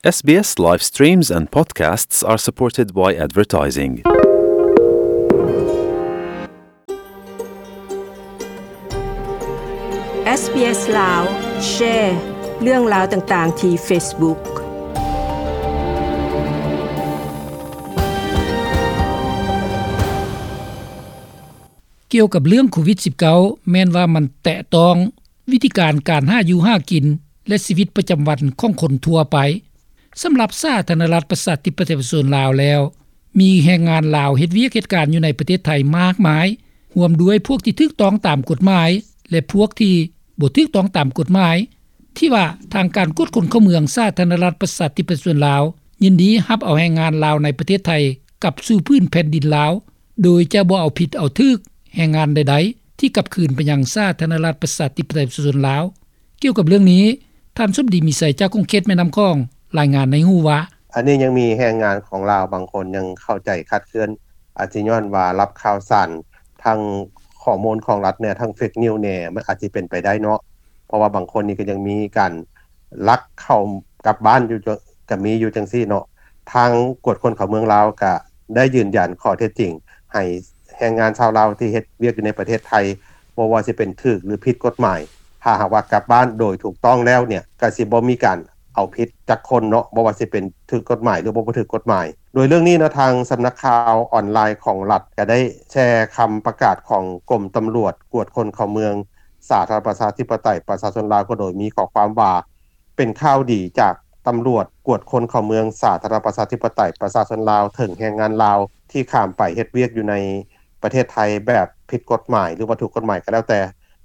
SBS live streams and podcasts are supported by advertising. ເອສບີເອສ ລາວ ແຊ ເລື່ອງລາວຕ່າງໆ ທີ່ Facebook. ກ່ຽວກັບເລື່ອງໂຄວິດສິບເກົ້າ ແມ່ນວ່າມັນແຕະຕ້ອງວິທີການ ການຫາຢູ່ຫາກິນ ແລະ ຊີວິດປະຈຳວັນຂອງຄົນທົ່ວໄປ. ສຳລັບສາທາລະນະລັດ ປະຊາທິປະໄຕ ປະຊາຊົນລາວແລ້ວ, ມີແຮງງານລາວເຮັດວຽກເຮັດການຢູ່ໃນປະເທດໄທມາກມາຍ, ຮ່ວມດ້ວຍພວກທີ່ຖືກຕ້ອງຕາມກົດໝາຍ ແລະ ພວກທີ່ບໍ່ຖືກຕ້ອງຕາມກົດໝາຍ, ທີ່ວ່າທາງການກວດຄົນເຂົ້າເມືອງ ສາທາລະນະລັດ ປະຊາທິປະໄຕ ປະຊາຊົນລາວ ຍິນດີຮັບເອົາແຮງງານລາວໃນປະເທດໄທ ກັບສູ່ພື້ນແຜ່ນດິນລາວ ໂດຍຈະບໍ່ເອົາຜິດເອົາຖືກແຮງງານໃດໆ ທີ່ກັບຄືນໄປຍັງສາທາລະນະລັດ ປະຊາທິປະໄຕ ປະຊາຊົນລາວ. ກ່ຽວກັບເລື່ອງນີ້, ທ່ານ ສົມດີ ມີໄຊ ຈາກຂົງເຂດແມ່ນ້ຳຂອງ ລາຍງານໃຫ້ຮູ້ວ່າ: ອັນນີ້ຍັງມີແຮງງານຂອງລາວບາງຄົນຍັງເຂົ້າໃຈຄາດເຄື່ອນ, ອາດຊິຍ້ອນວ່າຮັບຂ່າວສານ ທັງຂໍ້ມູນຂອງລັດແດ່ ທັງເຟກນິວແດ່, ມັນອາດຊິເປັນໄປໄດ້ເນາະ, ເພາະວ່າບາງຄົນນີ້ກໍຍັງມີການລັກເຂົ້າກັບບ້ານຢູ່ ກໍມີຢູ່ຈັ່ງຊີ້ເນາະ. ທາງກວດຄົນເຂົ້າເມືອງລາວກໍໄດ້ຢືນຢັນຂໍ້ເທັດຈິງໃຫ້ແຮງງານຊາວລາວທີ່ເຮັດວຽກຢູ່ໃນປະເທດໄທ ບໍ່ວ່າຊິເປັນຖືກ ຫຼື ຜິດກົດໝາຍ, ຖ້າຫາກວ່າກັບບ້ານໂດຍຖືກຕ້ອງແລ້ວເນ່ຍ ກໍຊິບໍ່ມີການເອົາຜິດຈັກຄົນເນາະ, ບໍ່ວ່າຊິເປັນຖືກກົດໝາຍ ຫຼື ບໍ່ຖືກກົດໝາຍ. ໂດຍເລື່ອງນີ້ເນາະ, ທາງສຳນັກຂ່າວອອນລາຍຂອງລັດກໍໄດ້ແຊຄຳປະກາດຂອງກົມຕຳຫຼວດກວດຄົນເຂົ້າເມືອງ ສາທາລະນະລັດ ປະຊາທິປະໄຕ ປະຊາຊົນລາວ ກໍໂດຍມີຂໍ້ຄວາມວ່າ ເປັນຂ່າວດີຈາກຕຳຫຼວດກວດຄົນເຂົ້າເມືອງ ສາທາລະນະລັດ ປະຊາທິປະໄຕ ປະຊາຊົນລາວ ເຖິງແຮງງານລາວທີ່ຂ້າມໄປເຮັດວຽກຢູ່ໃນປະເທດໄທແບບຜິດກົດໝາຍ ຫຼືວ່າຖືກກົດໝາຍກໍແລ້ວແຕ່,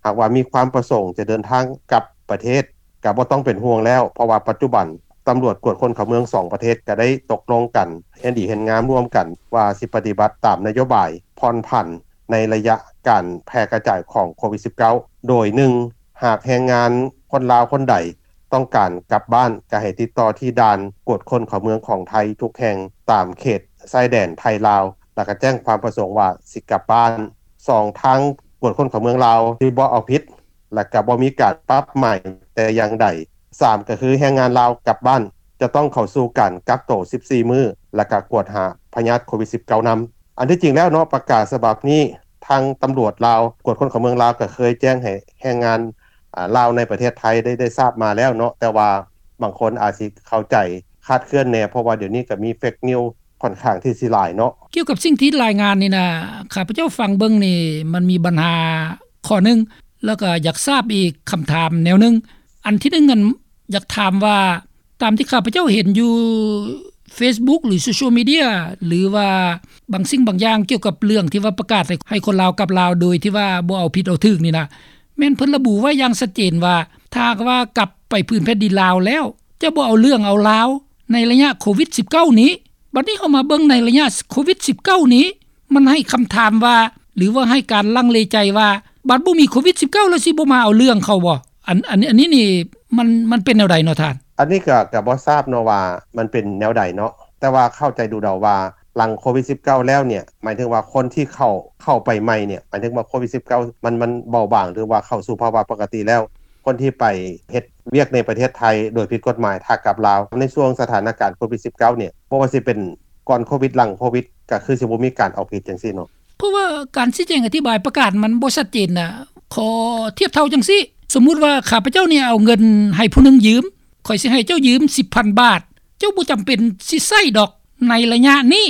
ຫາກວ່າມີຄວາມປະສົງຈະເດີນທາງກັບປະເທດ ກໍບໍ່ຕ້ອງເປັນຫ່ວງແລ້ວ, ເພາະວ່າປັດຈຸບັນຕຳຫຼວດກວດຄົນເຂົ້າເມືອງສອງປະເທດກໍໄດ້ຕົກລົງກັນເຫັນດີເຫັນງາມຮ່ວມກັນ ວ່າຊິປະຕິບັດຕາມນະໂຍບາຍຜ່ອນຜັນ ໃນໄລຍະການແຜ່ກະຈາຍຂອງໂຄວິດສິບເກົ້າ ໂດຍ ໜຶ່ງ ຫາກແຮງງານຄົນລາວຄົນໃດຕ້ອງການກັບບ້ານ ກໍໃຫ້ຕິດຕໍ່ທີ່ດ່ານກວດຄົນເຂົ້າເມືອງຂອງໄທທຸກແຫ່ງຕາມເຂດຊາຍແດນໄທ-ລາວ ແລ້ວກໍແຈ້ງຄວາມປະສົງວ່າຊິກັບບ້ານ. ສອງ ທາງກວດຄົນເຂົ້າເມືອງລາວຊິບໍ່ເອົາຜິດ ແລ້ວກໍບໍ່ມີການປັບໃໝແຕ່ຢ່າງໃດ. ສາມ ກໍຄືແຮງງານລາວກັບບ້ານຈະຕ້ອງເຂົ້າສູ່ການກັກໂຕສິບສີ່ມື້ ແລ້ວກໍກວດຫາພະຍາດໂຄວິດສິບເກົ້ານຳ. ອັນທີ່ຈິງແລ້ວເນາະ ປະກາດສະບັບນີ້ ທາງຕຳຫຼວດລາວ ກວດຄົນເຂົ້າເມືອງລາວ ກໍເຄີຍແຈ້ງໃຫ້ແຮງງານ ອາ ລາວໃນປະເທດໄທໄດ້ ໄດ້ຊາບມາແລ້ວເນາະ, ແຕ່ວ່າບາງຄົນອາດຊິເຂົ້າໃຈຄາດເຄື່ອນແດ່ ເພາະວ່າດຽວນີ້ກໍມີເຟກນິວຂ້ອນຂ້າງທີ່ຊິຫຼາຍເນາະ. ກ່ຽວກັບສິ່ງທີ່ລາຍງານນີ້ນະ ຂ້າພະເຈົ້າຟັງເບິ່ງນີ້ ມັນມີບັນຫາຂໍ້ໜຶ່ງ ແລ້ວກໍຢາກຊາບອີກຄຳຖາມແນວໜຶ່ງ. ອັນທີໜຶ່ງ ອັນ ຢາກຖາມວ່າ ຕາມທີ່ຂ້າພະເຈົ້າເຫັນຢູ່ເຟສບຸກ ຫຼື ໂຊຊຽວມີເດຍ ຫຼືວ່າບາງສິ່ງບາງຢ່າງກ່ຽວກັບເລື່ອງທີ່ວ່າປະກາດໃຫ້ ໃຫ້ຄົນລາວກັບລາວໂດຍທີ່ວ່າບໍ່ເອົາຜິດເອົາຖືກນີ້ນະ ແມ່ນເພິ່ນລະບຸໄວ້ຢ່າງຊັດເຈນວ່າ ຖ້າຫາກວ່າກັບໄປພື້ນແຜ່ນດິນລາວແລ້ວ ຈະບໍ່ເອົາເລື່ອງເອົາລາວໃນໄລຍະໂຄວິດສິບເກົ້ານີ້. ບັດນີ້ເຮົາມາເບິ່ງໃນໄລຍະໂຄວິດສິບເກົ້ານີ້ ມັນໃຫ້ຄຳຖາມວ່າ ຫຼືວ່າໃຫ້ການລັງເລໃຈວ່າ ບັດບໍ່ມີໂຄວິດສິບເກົ້າແລ້ວຊິບໍ່ມາເອົາເລື່ອງເຂົາບໍ່? ອັນ ອັນ ອັນນີ້ນີ້ ມັນ ມັນເປັນແນວໃດເນາະທ່ານ? ອັນນີ້ກໍ ກໍບໍ່ຊາບເນາະວ່າມັນເປັນແນວໃດເນາະ, ແຕ່ວ່າເຂົ້າໃຈດູເດົາວ່າ ຫຼັງໂຄວິດສິບເກົ້າແລ້ວເນ່ຍ ໝາຍເຖິງວ່າຄົນທີ່ເຂົ້າ ເຂົ້າໄປໃໝ່ເນ່ຍ ໝາຍເຖິງວ່າໂຄວິດສິບເກົ້າມັນ ມັນເບົາບາງ ຫຼືວ່າເຂົ້າສູ່ພາວະປົກກະຕິແລ້ວ, ຄົນທີ່ໄປເຮັດວຽກໃນປະເທດໄທໂດຍຜິດກົດໝາຍ ຖ້າກັບລາວ ໃນຊ່ວງສະຖານະການໂຄວິດສິບເກົ້າເນ່ຍ ບໍ່ວ່າຊິເປັນກ່ອນໂຄວິດ ຫຼັງໂຄວິດ ກໍຄືຊິບໍ່ມີການເອົາຜິດຈັ່ງຊີ້ເນາະ. ເພາະວ່າການຊີ້ແຈງອະທິບາຍປະກາດມັນບໍ່ຊັດເຈນນະ. ຂໍທຽບເທົ່າຈັ່ງຊີ້, ສົມມຸດວ່າຂ້າພະເຈົ້ານີ້ເອົາເງິນໃຫ້ຜູ້ໜຶ່ງຢືມ, ຂ້ອຍຊິໃຫ້ເຈົ້າຢືມສິບພັນບາດ, ເຈົ້າບໍ່ຈຳເປັນຊິໃຊ້ດອກໃນໄລຍະນີ້,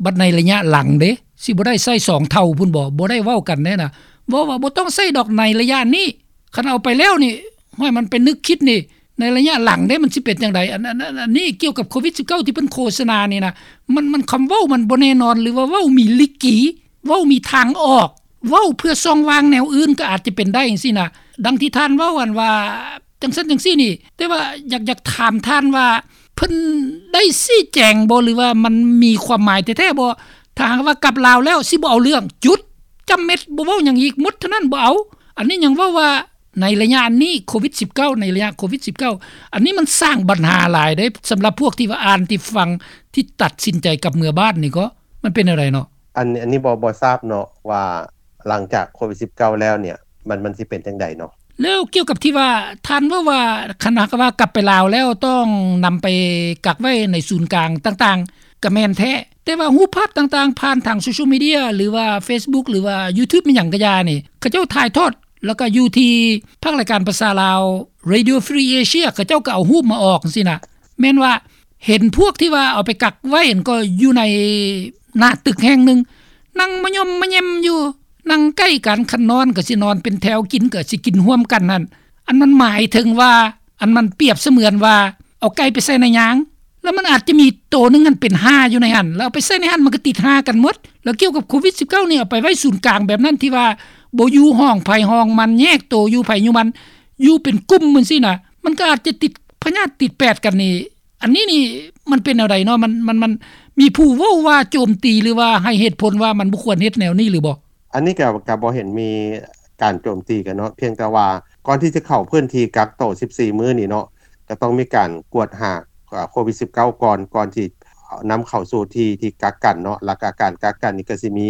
ບັດໃນໄລຍະຫຼັງເດ້, ຊິບໍ່ໄດ້ໃຊ້ສອງເທົ່າພຸ້ນບໍ? ບໍ່ໄດ້ເວົ້າກັນແນ່ນະ. ເວົ້າວ່າບໍ່ຕ້ອງໃຊ້ດອກໃນໄລຍະນີ້, ຄັນເອົາໄປແລ້ວນີ້, ຫ້ວຍ ມັນໄປນຶກຄິດນີ້, ໃນໄລຍະຫຼັງເດ້ ມັນຊິເປັນຈັ່ງໃດ? ອັນ ອັນ ອັນ ອັນນີ້ກ່ຽວກັບໂຄວິດສິບເກົ້າ ທີ່ເພິ່ນໂຄສະນານີ້ນະ, ມັນ ມັນຄຳເວົ້າມັນບໍ່ແນ່ນອນ ຫຼືວ່າເວົ້າມີລິກີ, ເວົ້າມີທາງອອກ, ເວົ້າເພື່ອຊ່ອງວ່າງແນວອື່ນກໍອາດຈະເປັນໄດ້ຈັ່ງຊີ້ນະ. ດັ່ງທີ່ທ່ານເວົ້າ ອັນວ່າຈັ່ງຊັ້ນຈັ່ງຊີ້ນີ້, ແຕ່ວ່າຢາກ ຢາກຖາມທ່ານວ່າ ເພິ່ນໄດ້ຊີ້ແຈງບໍ່ ຫຼືວ່າມັນມີຄວາມໝາຍແທ້ໆບໍ່? ຖ້າຫາກວ່າກັບລາວແລ້ວຊິບໍ່ເອົາເລື່ອງ, ຈຸດ, ຈ້ຳເມັດ, ບໍ່ເວົ້າຫຍັງອີກ, ໝົດເທົ່ານັ້ນ, ບໍ່ເອົາ. ອັນນີ້ຍັງເວົ້າວ່າ ໃນໄລຍະອັນນີ້ ໂຄວິດສິບເກົ້າ ໃນໄລຍະໂຄວິດສິບເກົ້າ ອັນນີ້ມັນສ້າງບັນຫາຫຼາຍເດ້ ສຳລັບພວກທີ່ວ່າອ່ານ ທີ່ຟັງ ທີ່ຕັດສິນໃຈກັບເມືອບ້ານນີ້ກໍ ມັນເປັນແນວໃດເນາະ? ອັນ ອັນນີ້ບໍ່ ບໍ່ຊາບເນາະວ່າ ຫຼັງຈາກໂຄວິດສິບເກົ້າແລ້ວເນ່ຍ ມັນ ມັນຊິເປັນຈັ່ງໃດເນາະ? ແລ້ວກ່ຽວກັບທີ່ວ່າທ່ານເວົ້າວ່າ ຄັນຫາກວ່າກັບໄປລາວແລ້ວຕ້ອງນຳໄປກັກໄວ້ໃນສູນກາງຕ່າງໆ ກໍແມ່ນແທ້, ແຕ່ວ່າຮູບພາບຕ່າງໆ ຜ່ານທາງໂຊຊຽວມີເດຍ ຫຼືວ່າເຟສບຸກ ຫຼືວ່າຢູທູບ ອີ່ຫຍັງກໍຢ່ານີ້ ເຂົາເຈົ້າຖ່າຍທອດ ແລ້ວກໍຢູ່ທີ່ພາກລາຍການພາສາລາວ Radio Free Asia ເຂົາເຈົ້າກໍເອົາຮູບມາອອກຈັ່ງຊີ້ນະ. ແມ່ນວ່າເຫັນພວກທີ່ວ່າເອົາໄປກັກໄວ້ຫັ້ນ ກໍຢູ່ໃນໜ້າຕຶກແຫ່ງໜຶ່ງ ນັ່ງມະຍົມມະແຍມຢູ່ ນັ່ງໃກ້ກັນ, ຄັນນອນກໍຊິນອນເປັນແຖວ, ກິນກໍຊິກິນຮ່ວມກັນຫັ້ນ. ອັນມັນໝາຍເຖິງວ່າ ອັນມັນປຽບສະເໝືອນວ່າເອົາໄກ່ໄປໃສ່ໃນຍາງ ແລ້ວມັນອາດຈະມີໂຕໜຶ່ງຫັ້ນເປັນຫ່າຢູ່ໃນຫັ້ນ ແລ້ວເອົາໄປໃສ່ໃນຫັ້ນ ມັນກໍຕິດຫ່າກັນໝົດ. ແລ້ວກ່ຽວກັບໂຄວິດສິບເກົ້ານີ້ ເອົາໄປໄວ້ສູນກາງແບບນັ້ນ ທີ່ວ່າບໍ່ຢູ່ຫ້ອງໃຜຫ້ອງມັນ ແຍກໂຕຢູ່ໃຜຢູ່ມັນ ຢູ່ເປັນກຸ່ມຈັ່ງຊີ້ນະ ມັນກໍອາດຈະຕິດພະຍາດຕິດແປດກັນນີ້. ອັນນີ້ນີ້ມັນເປັນແນວໃດເນາະ? ມັນ ມັນ ມັນມີຜູ້ເວົ້າວ່າໂຈມຕີ ຫຼືວ່າໃຫ້ເຫດຜົນວ່າມັນບໍ່ຄວນເຮັດແນວນີ້ຫຼືບໍ່? ອັນນີ້ກໍ ກໍບໍ່ເຫັນມີການໂຈມຕີກັນເນາະ, ພຽງແຕ່ວ່າກ່ອນທີ່ຈະເຂົ້າພື້ນທີ່ກັກໂຕສິບສີ່ມື້ນີ້ເນາະ ກໍຕ້ອງມີການກວດຫາ ເອີ ໂຄວິດສິບເກົ້າກ່ອນ ກ່ອນທີ່ນຳເຂົ້າສູ່ທີ່ ທີ່ກັກກັນເນາະ. ແລ້ວກໍການກັກກັນນີ້ກໍຊິມີ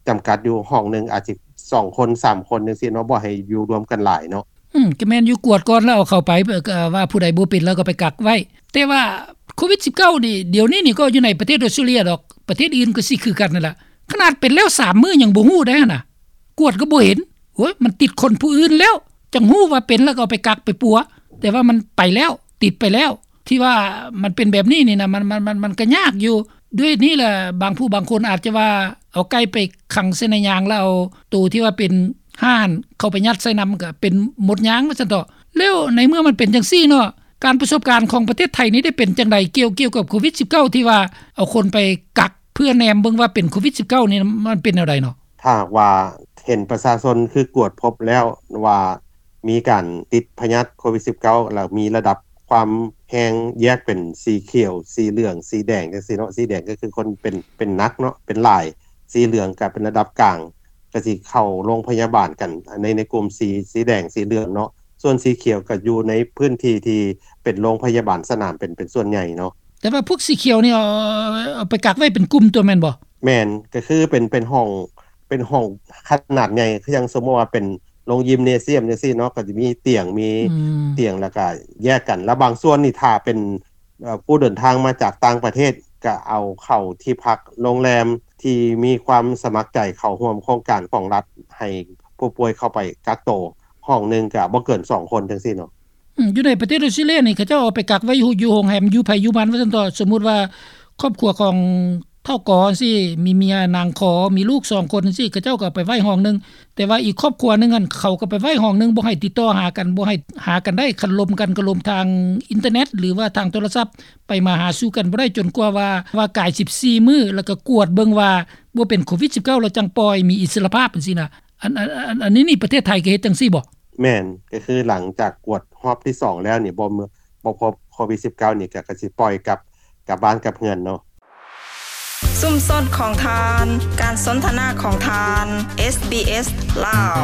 ຈຳກັດຢູ່ ຫ້ອງໜຶ່ງອາດຊິສອງຄົນ ສາມຄົນຈັ່ງຊີ້ເນາະ, ບໍ່ໃຫ້ຢູ່ລວມກັນຫຼາຍເນາະ. ອືມ ກໍແມ່ນຢູ່ ກວດກ່ອນແລ້ວເອົາເຂົ້າໄປ ເອີ ກໍວ່າຜູ້ໃດບໍ່ເປັນແລ້ວກໍໄປກັກໄວ້. ແຕ່ວ່າໂຄວິດສິບເກົ້ານີ້ ດຽວນີ້ນີ້ກໍຢູ່ໃນປະເທດອອສເຕຣເລັຽດອກ, ປະເທດອື່ນກໍຊິຄືກັນນັ້ນລະ. ຂະໜາດເປັນແລ້ວສາມມື້ຍັງບໍ່ຮູ້ໄດ໋ຫັ້ນນະ, ກວດກໍບໍ່ເຫັນ. ໂອ້ຍ ມັນຕິດຄົນຜູ້ອື່ນແລ້ວ ຈັ່ງຮູ້ວ່າເປັນ ແລ້ວກໍເອົາໄປກັກໄປປົວ, ແຕ່ວ່າມັນໄປແລ້ວ ຕິດໄປແລ້ວ. ທີ່ວ່າມັນເປັນແບບນີ້ນີ້ນະ ມັນ ມັນ ມັນ ມັນກໍຍາກຢູ່. ດ້ວຍນີ້ແຫຼະ ບາງຜູ້ບາງຄົນອາດຈະວ່າເອົາໄກ່ໄປຂັງໃສ່ໃນຍາງ ແລ້ວເອົາໂຕທີ່ວ່າເປັນຫ່າຫັ້ນເຂົ້າໄປຍັດໃສ່ນຳ ກໍເປັນໝົດຍາງວ່າຊັ້ນເຖາະ. ແລ້ວໃນເມື່ອມັນເປັນຈັ່ງຊີ້ເນາະ ການປະສົບການຂອງປະເທດໄທນີ້ໄດ້ເປັນຈັ່ງໃດ ກ່ຽວ ກ່ຽວກັບໂຄວິດສິບເກົ້າ ທີ່ວ່າເອົາຄົນໄປກັກເພື່ອແນມເບິ່ງວ່າເປັນໂຄວິດສິບເກົ້ານີ້ ມັນເປັນແນວໃດເນາະ? ຖ້າຫາກວ່າເຫັນປະຊາຊົນຄືກວດພົບແລ້ວວ່າມີການຕິດພະຍາດໂຄວິດສິບເກົ້າ ແລ້ວມີລະດັບຄວາມແຮງແຍກເປັນສີຂຽວ, ສີເຫຼືອງ, ສີແດງ ຈັ່ງຊີ້ເນາະ. ສີແດງກໍຄືຄົນເປັນ ເປັນໜັກເນາະ ເປັນຫຼາຍ, ສີເຫຼືອງກໍເປັນລະດັບກາງ ກໍຊິເຂົ້າໂຮງພະຍາບານກັນ ໃນ ໃນກຸ່ມສີ ສີແດງ ສີເຫຼືອງເນາະ. ສ່ວນສີຂຽວກໍຢູ່ໃນພື້ນທີ່ທີ່ເປັນໂຮງພະຍາບານສະໜາມເປັນ ເປັນສ່ວນໃຫຍ່ເນາະ. ແຕ່ວ່າພວກສີຂຽວນີ້ ເອົາ ເອົາໄປກັກໄວ້ເປັນກຸ່ມຕົວແມ່ນບໍ່? ແມ່ນ, ກໍຄືເປັນ ເປັນຫ້ອງ ເປັນຫ້ອງຂະໜາດໃຫຍ່ ຄືຢ່າງສົມມຸດວ່າເປັນໂຮງຢິມເນຊຽມຈັ່ງຊີ້ເນາະ, ກໍຈະມີຕຽງ ມີ ອືມ ຕຽງ ແລ້ວກໍແຍກກັນ. ແລ້ວບາງສ່ວນນີ້ຖ້າເປັນ ເອີ ຜູ້ເດີນທາງມາຈາກຕ່າງປະເທດ ກໍເອົາເຂົ້າທີ່ພັກໂຮງແຮມທີ່ມີຄວາມສະໝັກໃຈເຂົ້າຮ່ວມໂຄງການຂອງລັດ ໃຫ້ຜູ້ປ່ວຍເຂົ້າໄປກັກໂຕ ຫ້ອງໜຶ່ງກໍບໍ່ເກີນສອງຄົນຈັ່ງຊີ້ເນາະ. ອືມ ຢູ່ໃນປະເທດອອສເຕຣເລັຽນີ້ ເຂົາເຈົ້າເອົາໄປກັກໄວ້ຢູ່ ຢູ່ໂຮງແຮມ ຢູ່ໃຜຢູ່ມັນວ່າຊັ້ນເຖາະ. ສົມມຸດວ່າຄອບຄົວຂອງທ້າວກໍຈັ່ງຊີ້ ມີເມຍນາງຂໍ ມີລູກສອງຄົນຈັ່ງຊີ້ ເຂົາເຈົ້າກໍເອົາໄປໄວ້ຫ້ອງໜຶ່ງ. ແຕ່ວ່າອີກຄອບຄົວໜຶ່ງຫັ້ນ ເຂົາກໍໄປໄວ້ຫ້ອງໜຶ່ງ ບໍ່ໃຫ້ຕິດຕໍ່ຫາກັນ ບໍ່ໃຫ້ຫາກັນໄດ້. ຄັນລົມກັນກໍລົມທາງອິນເຕີເນັດ ຫຼືວ່າທາງໂທລະສັບ ໄປມາຫາສູ່ກັນບໍ່ໄດ້ ຈົນກວ່າວ່າ ວ່າກາຍສິບສີ່ມື້ ແລ້ວກໍກວດເບິ່ງວ່າບໍ່ເປັນໂຄວິດສິບເກົ້າ ແລ້ວຈັ່ງປ່ອຍ ມີອິດສະຫຼະພາບຈັ່ງຊີ້ນະ. ອັນ ອັນ ອັນ ອັນນີ້ນີ້ ປະເທດໄທກໍເຮັດຈັ່ງຊີ້ບໍ່? ແມ່ນ, ກໍຄືຫຼັງຈາກກວດຮອບທີສອງແລ້ວນີ້ ບໍ່ ບໍ່ພົບໂຄວິດສິບເກົ້ານີ້ ກໍ ກໍຊິປ່ອຍກັບ ກັບບ້ານກັບເຮືອນເນາະ. ຊຸມຊົນຂອງທ່ານ, ການສົນທະນາຂອງທ່ານ, ເອສບີເອສ ລາວ.